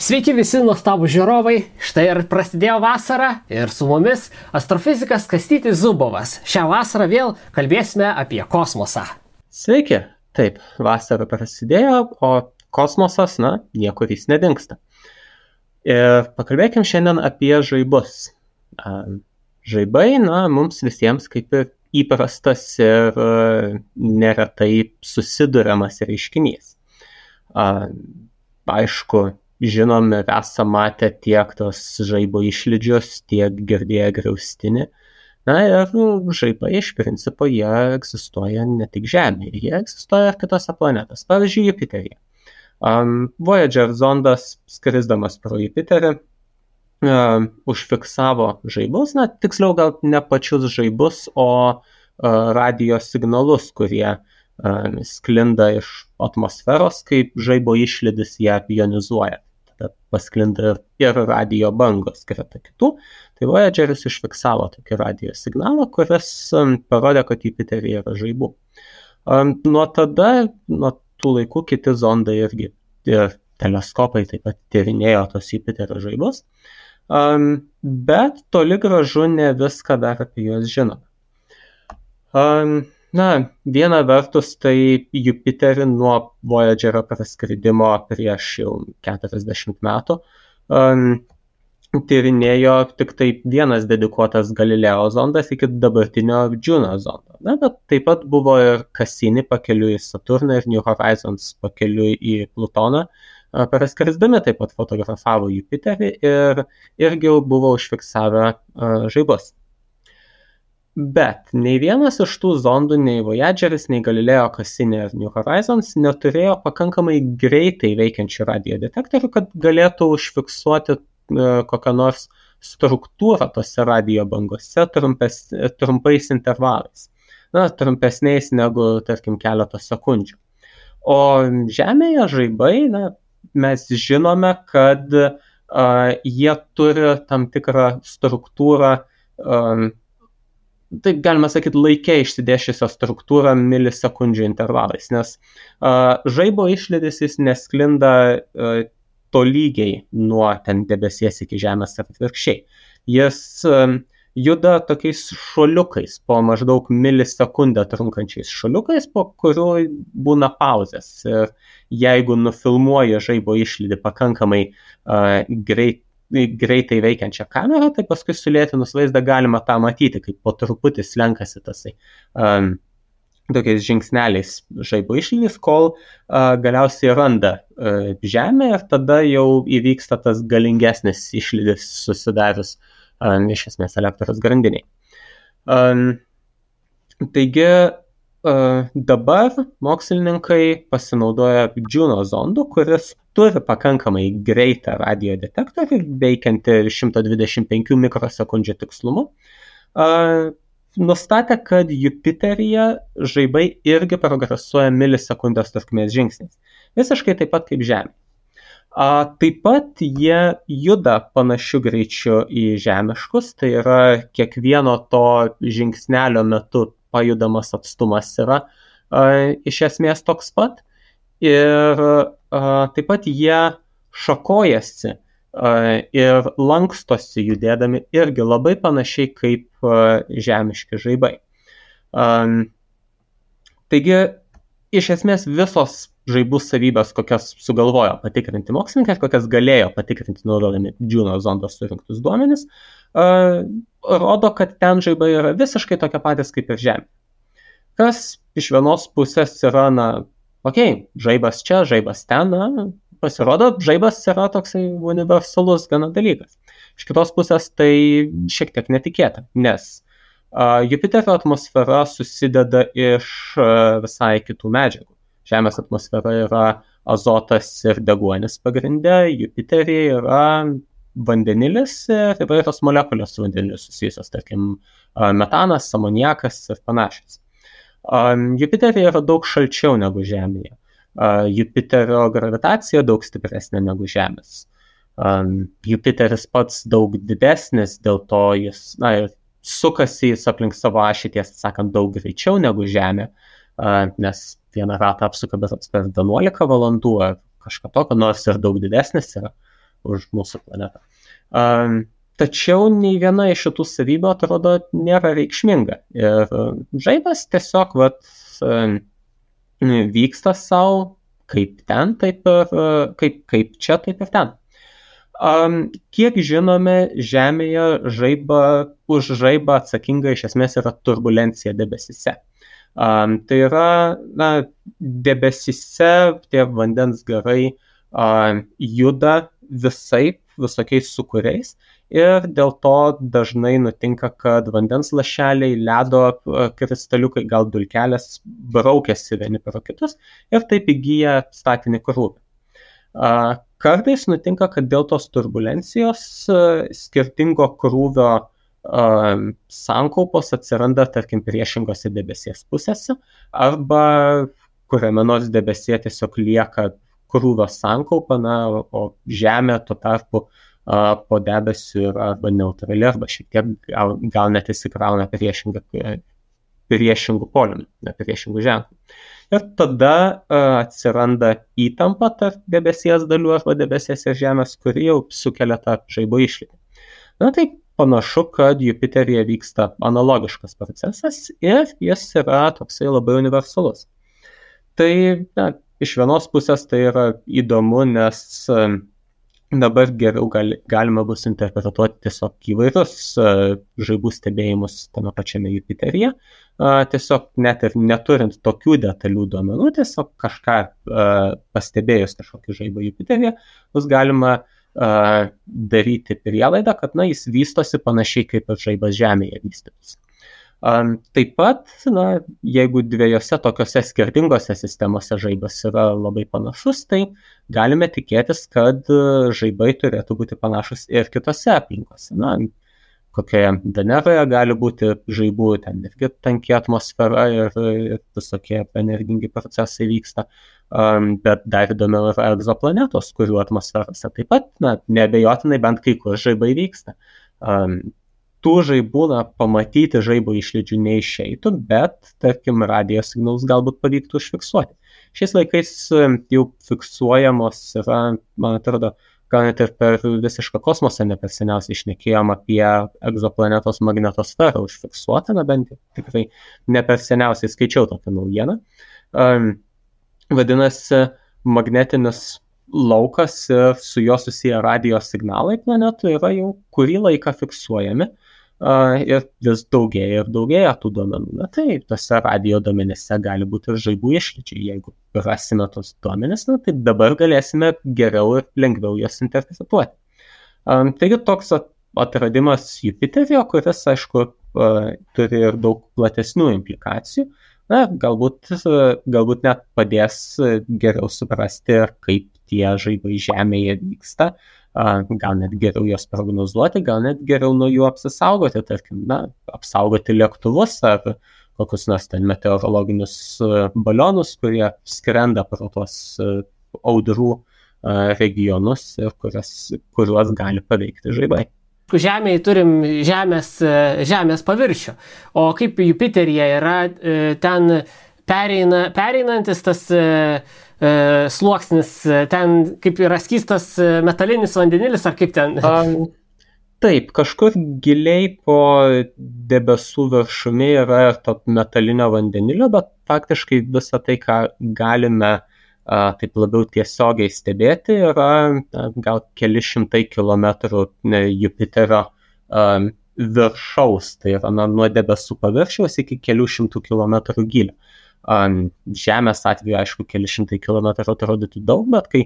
Sveiki visi nuostabų žiūrovai, štai ir prasidėjo vasara ir su mumis astrofizikas Kastytis Zubovas. Šią vasarą vėl kalbėsime apie kosmosą. Sveiki, taip, vasara prasidėjo, o kosmosas, niekur jis nedingsta. Ir pakalbėkim šiandien apie žaibus. Žaibai, mums visiems kaip ir įprastas ir neretai susiduriamas reiškinys. Aišku, žinome, esame matę tiek tos žaibo išlydžius, tiek girdėję griaustinį. Ir žaibai iš principo jie egzistuoja ne tik Žemėje, jie egzistuoja ir kitose planetose, pavyzdžiui, Jupiteryje. Voyager zondas, skrisdamas pro Jupiterį, užfiksavo žaibus, tiksliau gal ne pačius žaibus, o radijo signalus, kurie sklinda iš atmosferos, kaip žaibo išlydis ją ionizuoja. Tada pasklinda ir radijo bangos greta kitų. Tai Voyageris užfiksavo tokį radijo signalą, kuris parodė, kad Jupiteryje yra žaibų. Nuo tų laikų kiti zondai irgi ir teleskopai taip pat tyrinėjo tos Jupiterio žaibus, bet toli gražu ne viską dar apie juos žinome. Viena vertus, tai Jupiterį nuo Voyagerio praskridimo prieš jau 40 metų tyrinėjo tik tai vienas dedikuotas Galileo zondas iki dabartinio Juno zondo. Bet taip pat buvo ir Cassini pakeliui į Saturną ir New Horizons pakeliui į Plutoną. Praskrisdami taip pat fotografavo Jupiterį ir irgi jau buvo užfiksavę žaibus. Bet nei vienas iš tų zondų, nei Voyageris, nei Galileo, Cassini ir New Horizons neturėjo pakankamai greitai veikiančių radiodetektorių, kad galėtų užfiksuoti kokią nors struktūrą tose radijo bangose trumpais intervalais. Trumpesniais negu, tarkim, keletos sekundžių. O Žemėje žaibai, mes žinome, kad jie turi tam tikrą struktūrą, taip galima sakyti, laike išsidėsčiusią struktūrą milisekundžių intervalais, nes žaibo išlydis jis nesklinda tolygiai nuo ten debesies iki Žemės ar atvirkščiai. Jis juda tokiais šuoliukais, po maždaug milisekundę trunkančiais šuoliukais, po kurių būna pauzės. Ir jeigu nufilmuoja žaibo išlydį pakankamai greitai veikiančią kamerą, tai paskui sulėtinus vaizdą galima tą matyti, kaip po truputį slenkasi tasai tokiais žingsneliais žaibo išlydis, kol galiausiai randa Žemę ir tada jau įvyksta tas galingesnis išlydis susidarius iš esmės elektros grandiniai. Taigi dabar mokslininkai pasinaudoja Juno zondu, kuris turi pakankamai greitą radiodetektorių, veikiantį 125 mikrosekundžių tikslumu, nustatė, kad Jupiteryje žaibai irgi progresuoja milisekundės trukmės žingsniais. Visiškai taip pat kaip Žemė. Taip pat jie juda panašiu greičiu į žemiškus, tai yra kiekvieno to žingsnelio metu pajudamas atstumas yra iš esmės toks pat. Ir taip pat jie šakojasi ir lankstosi judėdami irgi labai panašiai kaip žemiški žaibai. Taigi, iš esmės visos žaibų savybės, kokias sugalvojo patikrinti mokslininkai, kokias galėjo patikrinti naudodami Juno zondos surinktus duomenis, rodo, kad ten žaibai yra visiškai tokie patys kaip ir Žemė. Kas iš vienos pusės yra, žaibas čia, žaibas ten, pasirodo, žaibas yra toksai universalus gana dalykas. Iš kitos pusės tai šiek tiek netikėta, nes Jupiterio atmosfera susideda iš visai kitų medžiagų. Žemės atmosfera yra azotas ir deguonis pagrinde, Jupiteryje yra vandenilis ir įvairios molekulės su vandeniu susijusios, tarkim, metanas, amoniakas ir panašios. Jupiteryje yra daug šalčiau negu Žemėje. Jupiterio gravitacija daug stipresnė negu Žemės. Jupiteris pats daug didesnis, dėl to jis sukasi jis aplink savo ašį, tiesą sakant, daug greičiau negu Žemė, nes vieną ratą apsuka per 11 valandų ar kažką tokio, nors ir daug didesnis yra. už mūsų planetą. Tačiau nei viena iš šitų savybių atrodo nėra reikšminga. Ir žaibas tiesiog vyksta savo kaip ten, taip ir kaip čia, taip ir ten. Kiek žinome, Žemėje už žaibą atsakinga iš esmės yra turbulencija debesyse. Tai yra, debesyse tie vandens garai juda visokiais sūkuriais ir dėl to dažnai nutinka, kad vandens lašeliai, ledo kristaliukai, gal dulkelės braukiasi vieni per kitus ir taip įgyja statinį krūvį. Kartais nutinka, kad dėl tos turbulencijos skirtingo krūvio sankaupos atsiranda, tarkim, priešingose debesies pusėse, arba kuriame nors debesyje tiesiog lieka krūvio sankaupa, o Žemė tuo tarpu po debesiu yra arba neutrali, arba šiek tiek gal net įsikrauna priešingų polių, priešingų ženklų. Ir tada atsiranda įtampa tarp debesies dalių arba debesies ir Žemės, kuri jau sukelia tą žaibo išlydį. Tai panašu, kad Jupiteryje vyksta analogiškas procesas ir jis yra toksai labai universalus. Tai iš vienos pusės tai yra įdomu, nes dabar geriau galima bus interpretuoti tiesiog įvairius žaibų stebėjimus tame pačiame Jupiteryje. Tiesiog net ir neturint tokių detalių duomenų, tiesiog kažką pastebėjus kažkokį žaibą Jupiteryje, bus galima daryti prielaidą, kad jis vystosi panašiai kaip ir žaibas Žemėje vystytųsi. Taip pat, jeigu dviejose tokiose skirtingose sistemose žaibas yra labai panašus, tai galime tikėtis, kad žaibai turėtų būti panašus ir kitose aplinkose. Kokioje Veneroje gali būti žaibų, ten irgi tanki atmosfera ir visokie energingi procesai vyksta, bet dar įdomiau yra egzoplanetos, kurių atmosferose taip pat, neabejotinai bent kai kur žaibai vyksta. Tų žaibų pamatyti žaibo išlydžių neišeitų, bet, tarkim, radijo signalus galbūt pavyktų užfiksuoti. Šiais laikais jau fiksuojamos yra, man atrodo, gal net ir per visišką kosmosą ne per seniausiai šnekėjom apie egzoplanetos magnetosferą užfiksuotą, bent tikrai ne per seniausiai skaičiau tokią naujieną. Vadinasi, magnetinis laukas ir su juo susiję radijo signalai planetų yra jau kurį laiką fiksuojami ir vis daugėja ir daugėja tų duomenų. Tai tose radijo duomenyse gali būti ir žaibų išlydžiai. Jeigu rasime tos duomenis, tai dabar galėsime geriau ir lengviau jas interpretuoti. Taigi toks atradimas Jupiteryje, kuris, aišku, turi ir daug platesnių implikacijų. Galbūt net padės geriau suprasti, kaip tie žaibai Žemėje vyksta, gal net geriau juos prognozuoti, gal net geriau nuo jų apsisaugoti, tarkim, apsaugoti lėktuvus ar kokius nors ten meteorologinius balionus, kurie skrenda pro tuos audrų regionus ir kuriuos gali paveikti žaibai. Žemėje turim žemės paviršių, o kaip Jupiteryje yra ten pereinantis tas sluoksnis, ten kaip yra skystas metalinis vandenilis, ar kaip ten? Taip, kažkur giliai po debesų viršumi yra to metalinio vandenilio, bet faktiškai visą tai, ką galime taip labiau tiesiogiai stebėti, yra gal keli šimtai kilometrų Jupiterio viršaus, tai yra nuo debesų paviršiaus iki kelių šimtų kilometrų gylio. Žemės atveju, aišku, keli šimtai kilometrų atrodytų daug, bet kai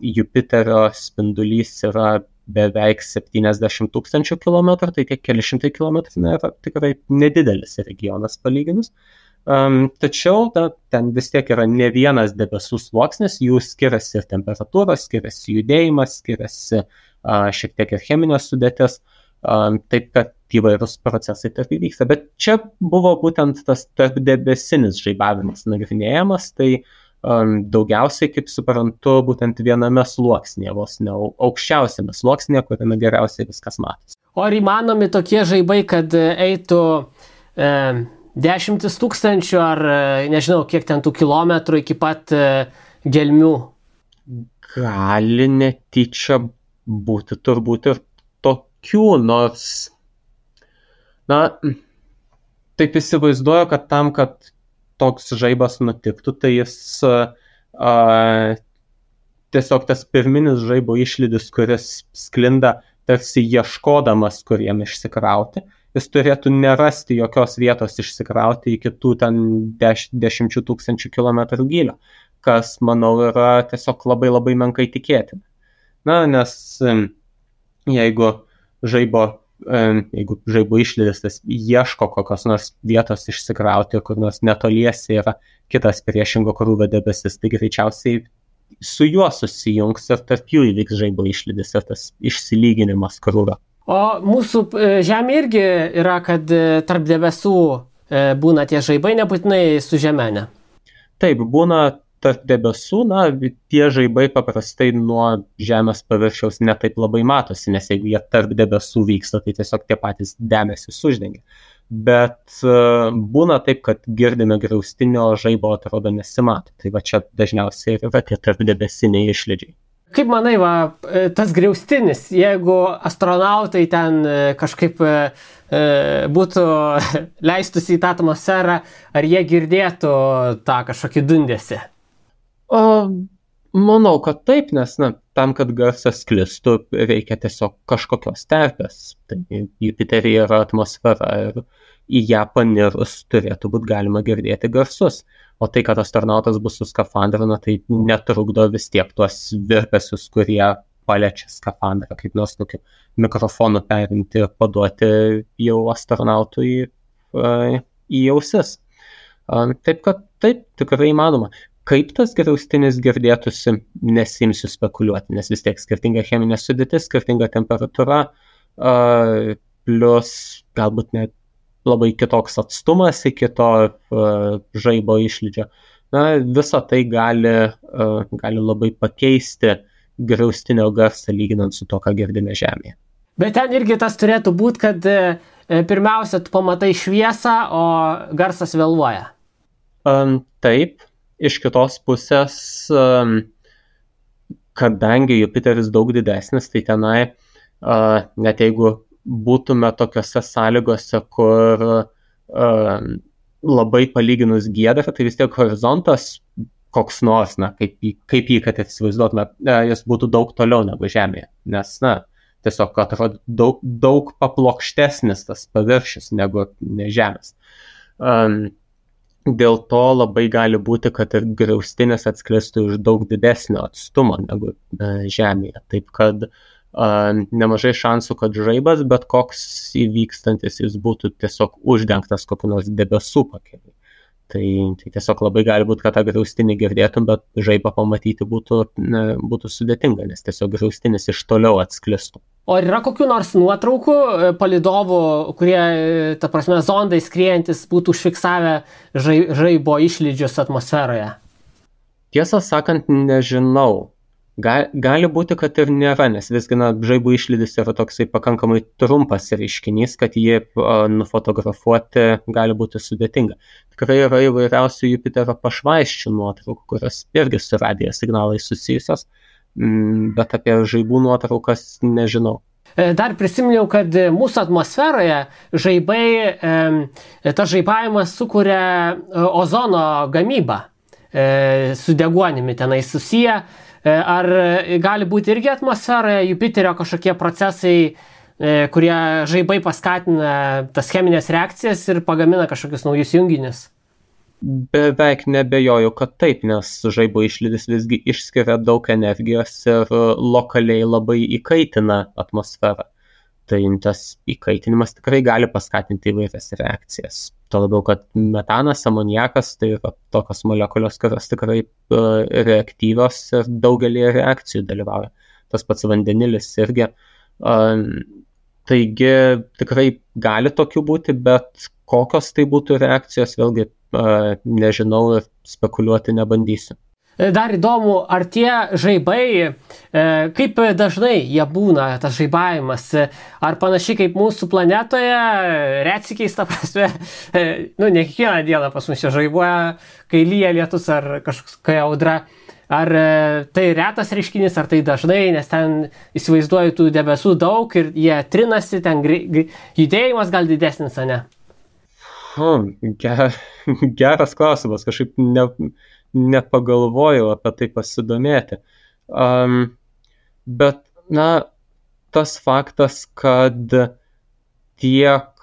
Jupiterio spindulys yra beveik 70 000 kilometrų, tai tie keli šimtai kilometrų yra tikrai nedidelis regionas palyginus. Tačiau ten vis tiek yra ne vienas debesų sluoksnis, jų skiriasi ir temperatūros, skiriasi judėjimas, skiriasi šiek tiek ir cheminės sudėtis, taip kad įvairūs procesai tarp įvyksta. Bet čia buvo būtent tas tarpdebesinis žaibavimas nagrinėjamas, tai daugiausiai, kaip suprantu, būtent viename sluoksnėje, vos ne aukščiausiame sluoksnėje, kuriame geriausiai viskas matosi. O ar įmanomi tokie žaibai, kad eitų 10 000 ar nežinau, kiek ten tų kilometrų iki pat gelmių? Gali netyčia būti turbūt ir tokių, nors, na, taip įsivaizduoju, kad tam, kad toks žaibas nutiktų, tai jis tiesiog tas pirminis žaibo išlydis, kuris sklinda tarsi ieškodamas, kur jam išsikrauti, jis turėtų nerasti jokios vietos išsikrauti iki tų ten 10 000 kilometrų gylio, kas, manau, yra tiesiog labai labai menkai tikėtina. Na, nes jeigu žaibo išlydis tas ieško kokios nors vietos išsikrauti, kur nors netoliese yra kitas priešingo krūvio debesis, tai greičiausiai su juo susijungs ir tarp jų įvyks žaibo išlydis ir tas išsilyginimas krūvio. O mūsų Žemė irgi yra, kad tarp debesų būna tie žaibai, nebūtinai su Žeme, ne? Taip, būna tarp debesų, na, tie žaibai paprastai nuo Žemės paviršiaus netaip labai matosi, nes jeigu jie tarp debesų vyksta, tai tiesiog tie patys debesys uždengia. Bet būna taip, kad girdime griaustinio žaibo atrodo nesimato. Tai va čia dažniausiai yra tie tarp debesiniai išlydžiai. Kaip manai, tas griaustinis, jeigu astronautai ten kažkaip būtų leistųsi į tą atmosferą, ar jie girdėtų tą kažkokį dundesį? Manau, kad taip, nes tam, kad garsas sklistų, reikia tiesiog kažkokios terpės. Tai Jupiteryje yra atmosfera ir į ją panirus turėtų būti galima girdėti garsus. O tai, kad astronautas bus su skafandru, tai netrukdo vis tiek tuos virpesius, kurie paliečia skafandrą, kaip nors tokiu mikrofonu perimti ir paduoti jau astronautui į ausis. Taip, kad taip, tikrai įmanoma. Kaip tas griaustinis girdėtųsi, nesimsiu spekuliuoti, nes vis tiek skirtinga cheminė sudėtis, skirtinga temperatūra, plus galbūt net labai kitoks atstumas iki to žaibo išlydžio. Na, visa tai gali labai pakeisti griaustinio garsą lyginant su to, ką girdime Žemėje. Bet ten irgi tas turėtų būti, kad pirmiausia, tu pamatai šviesą, o garsas vėluoja. Taip, iš kitos pusės, kadangi Jupiteris daug didesnis, tai tenai, net jeigu būtume tokiose sąlygose, kur labai palyginus giedra, tai vis tiek horizontas koks nors, kaip jį, kad įsivaizduotume, jis būtų daug toliau negu Žemėje, nes, tiesiog atrodo daug paplokštesnis tas paviršius negu Žemės. Dėl to labai gali būti, kad ir griaustinis atsklistų iš daug didesnio atstumo negu Žemėje, taip kad nemažai šansų, kad žaibas, bet koks įvykstantis jis būtų tiesiog uždengtas kokiu nors debesų pakeliu. Tai tiesiog labai gali būti, kad tą griaustinį girdėtum, bet žaibą pamatyti būtų sudėtinga, nes tiesiog griaustinis iš toliau atsklistų. O yra kokių nors nuotraukų palydovų, kurie, ta prasme, zondai skriejantis būtų užfiksavę žaibo išlydžius atmosferoje? Tiesą sakant, nežinau. Gali būti, kad ir nėra, nes visgi žaibo išlydis yra toksai pakankamai trumpas reiškinys, kad jį nufotografuoti gali būti sudėtinga. Tikrai yra įvairiausių Jupiterio pašvaisčių nuotraukų, kurios irgi su radijo signalais susijusios, bet apie žaibų nuotraukas nežinau. Dar prisiminiau, kad mūsų atmosferoje tas žaibavimas sukuria ozono gamybą su deguonimi tenai susiję. Ar gali būti irgi atmosferoje Jupiterio kažkokie procesai, kurie žaibai paskatina tas cheminės reakcijas ir pagamina kažkokius naujus junginius? Beveik nebejoju, kad taip, nes žaibo išlydis visgi išskiria daug energijos ir lokaliai labai įkaitina atmosferą. Tai tas įkaitinimas tikrai gali paskatinti įvairias reakcijas. Tuo labiau, kad metanas, amoniakas, tai yra tokios molekulios, kurios tikrai reaktyvios ir daugelį reakcijų dalyvauja. Tas pats vandenilis irgi. Taigi tikrai gali tokių būti, bet kokios tai būtų reakcijos, vėlgi nežinau ir spekuliuoti nebandysiu. Dar įdomu, ar tie žaibai, kaip dažnai jie būna, tas žaibavimas, ar panašiai kaip mūsų planetoje, retsykiais, ta prasme, ne kiekvieną dieną pas mus čia žaibuoja, kai lyja lietus ar kažkokia audra, Ar tai retas reiškinys, ar tai dažnai, nes ten įsivaizduoju tų debesų daug ir jie trinasi, ten judėjimas gal didesnis, ar ne? Geras klausimas, kažkaip nepagalvojau apie tai pasidomėti. Bet, tas faktas, kad tiek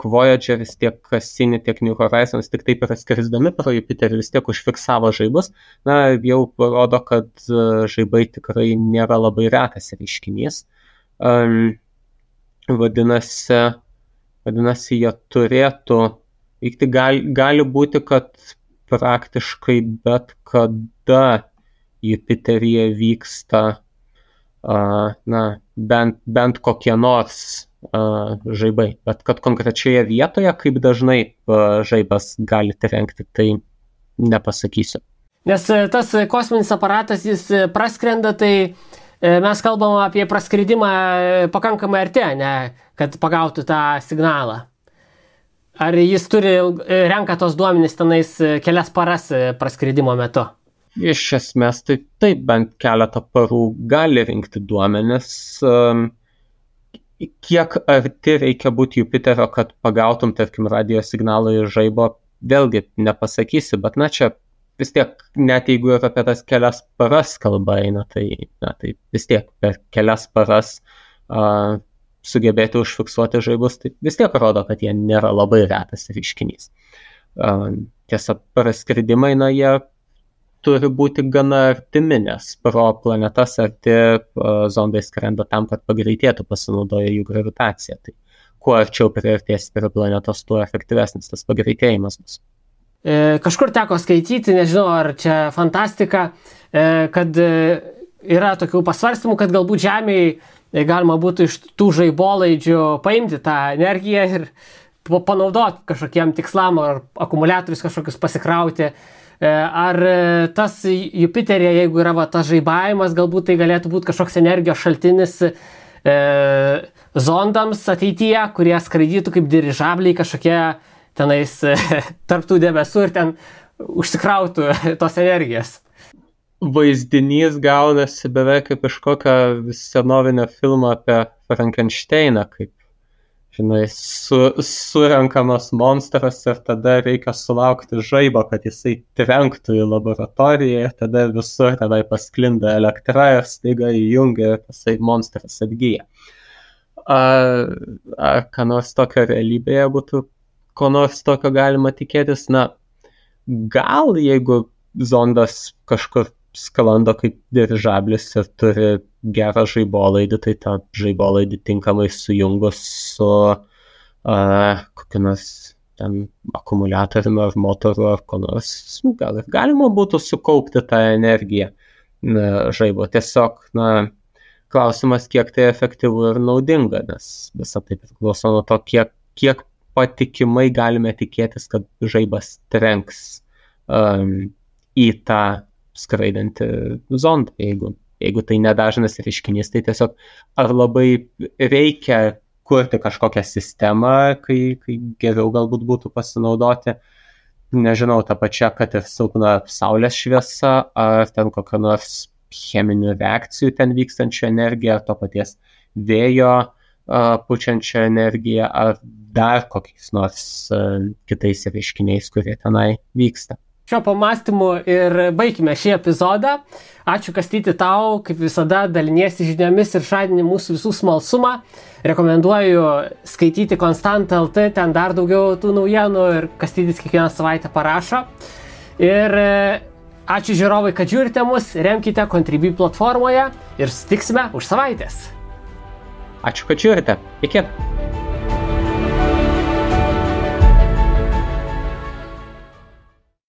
Voyageris, tiek Cassini, tiek New Horizons tik taip yra skrisdami pro Jupiterį vis tiek užfiksavo žaibus, jau parodo, kad žaibai tikrai nėra labai retas reiškinys. Vadinasi, jie turėtų vykti. Gali būti, kad praktiškai bet kada Jupiteryje vyksta bent kokie nors žaibai, bet kad konkrečioje vietoje, kaip dažnai žaibas gali trenkti, tai nepasakysiu. Nes tas kosminis aparatas, jis praskrenda, tai mes kalbam apie praskridimą pakankamai arti, ne, kad pagautų tą signalą. Ar jis renka tos duomenys tenais kelias paras praskridimo metu? Iš esmės, tai taip, bent keletą parų gali rinkti duomenis. Kiek arti reikia būti Jupiterio, kad pagautum, tarkim, radio signalą iš žaibo, vėlgi nepasakysi, bet čia vis tiek, net jeigu ir apie tas kelias paras kalba eina, tai vis tiek per kelias paras sugebėti užfiksuoti žaibus, tai vis tiek rodo, kad jie nėra labai retas reiškinys. Tiesa, praskridimai, jie turi būti gana artimi, nes pro planetas arti zondai skrenda tam, kad pagreitėtų, pasinaudoja jų gravitaciją. Tai kuo arčiau priartės prie planetos, tuo efektyvesnis tas pagreitėjimas bus. Kažkur teko skaityti, nežinau, ar čia fantastika, kad yra tokių pasvarstymų, kad galbūt Žemėje galima būtų iš tų žaibolaidžių paimti tą energiją ir panaudoti kažkokiem tikslam, ar akumuliatorius kažkokius pasikrauti. Ar tas Jupiteryje, jeigu yra tas žaibavimas, galbūt tai galėtų būti kažkoks energijos šaltinis zondams ateityje, kurie skraidytų kaip dirižabliai kažkokie tenais tarptų debesų ir ten užsikrautų tos energijos. Vaizdinys gaunasi beveik kaip iš kokio senovinio filmo apie Frankensteiną, kaip, žinai, surenkamas monstras ir tada reikia sulaukti žaibo, kad jisai trenktų į laboratoriją ir tada visur tenai pasklinda elektra ir staiga įjungia ir tasai monstras atgyja. Ar ką nors tokio realybėje būtų, ko nors tokio galima tikėtis? Gal jeigu zondas kažkur sklando kaip dirižablis ir turi gerą žaibolaidį, tai tą žaibolaidį tinkamai sujungus su kokiu nors ten akumuliatoriumi ar motoru ar ko nors, gal ir galima būtų sukaupti tą energiją žaibo. Tiesiog, klausimas, kiek tai efektyvu ir naudinga, nes visą tai priklauso nuo to, kiek patikimai galime tikėtis, kad žaibas trenks į tą skraidantį zondą. Jeigu tai nedažnas reiškinys, tai tiesiog ar labai reikia kurti kažkokią sistemą, kai geriau galbūt būtų pasinaudoti, nežinau, tą pačią, kad ir silpna saulės šviesa, ar ten kokią nors cheminių reakcijų ten vykstančią energiją, ar to paties vėjo pučiančią energiją, ar dar kokiais nors kitais reiškiniais, kurie tenai vyksta. Šio pamastymu ir baigime šį epizodą. Ačiū, Kastyti, tau, kaip visada, daliniesi žiniomis ir žadini mūsų visų smalsumą. Rekomenduoju skaityti Constant.lt, ten dar daugiau tų naujienų ir Kastytis kiekvieną savaitę parašo. Ir ačiū žiūrovai, kad žiūrite mus, remkite Contribui platformoje ir susitiksime už savaitės. Ačiū, kad žiūrite. Iki.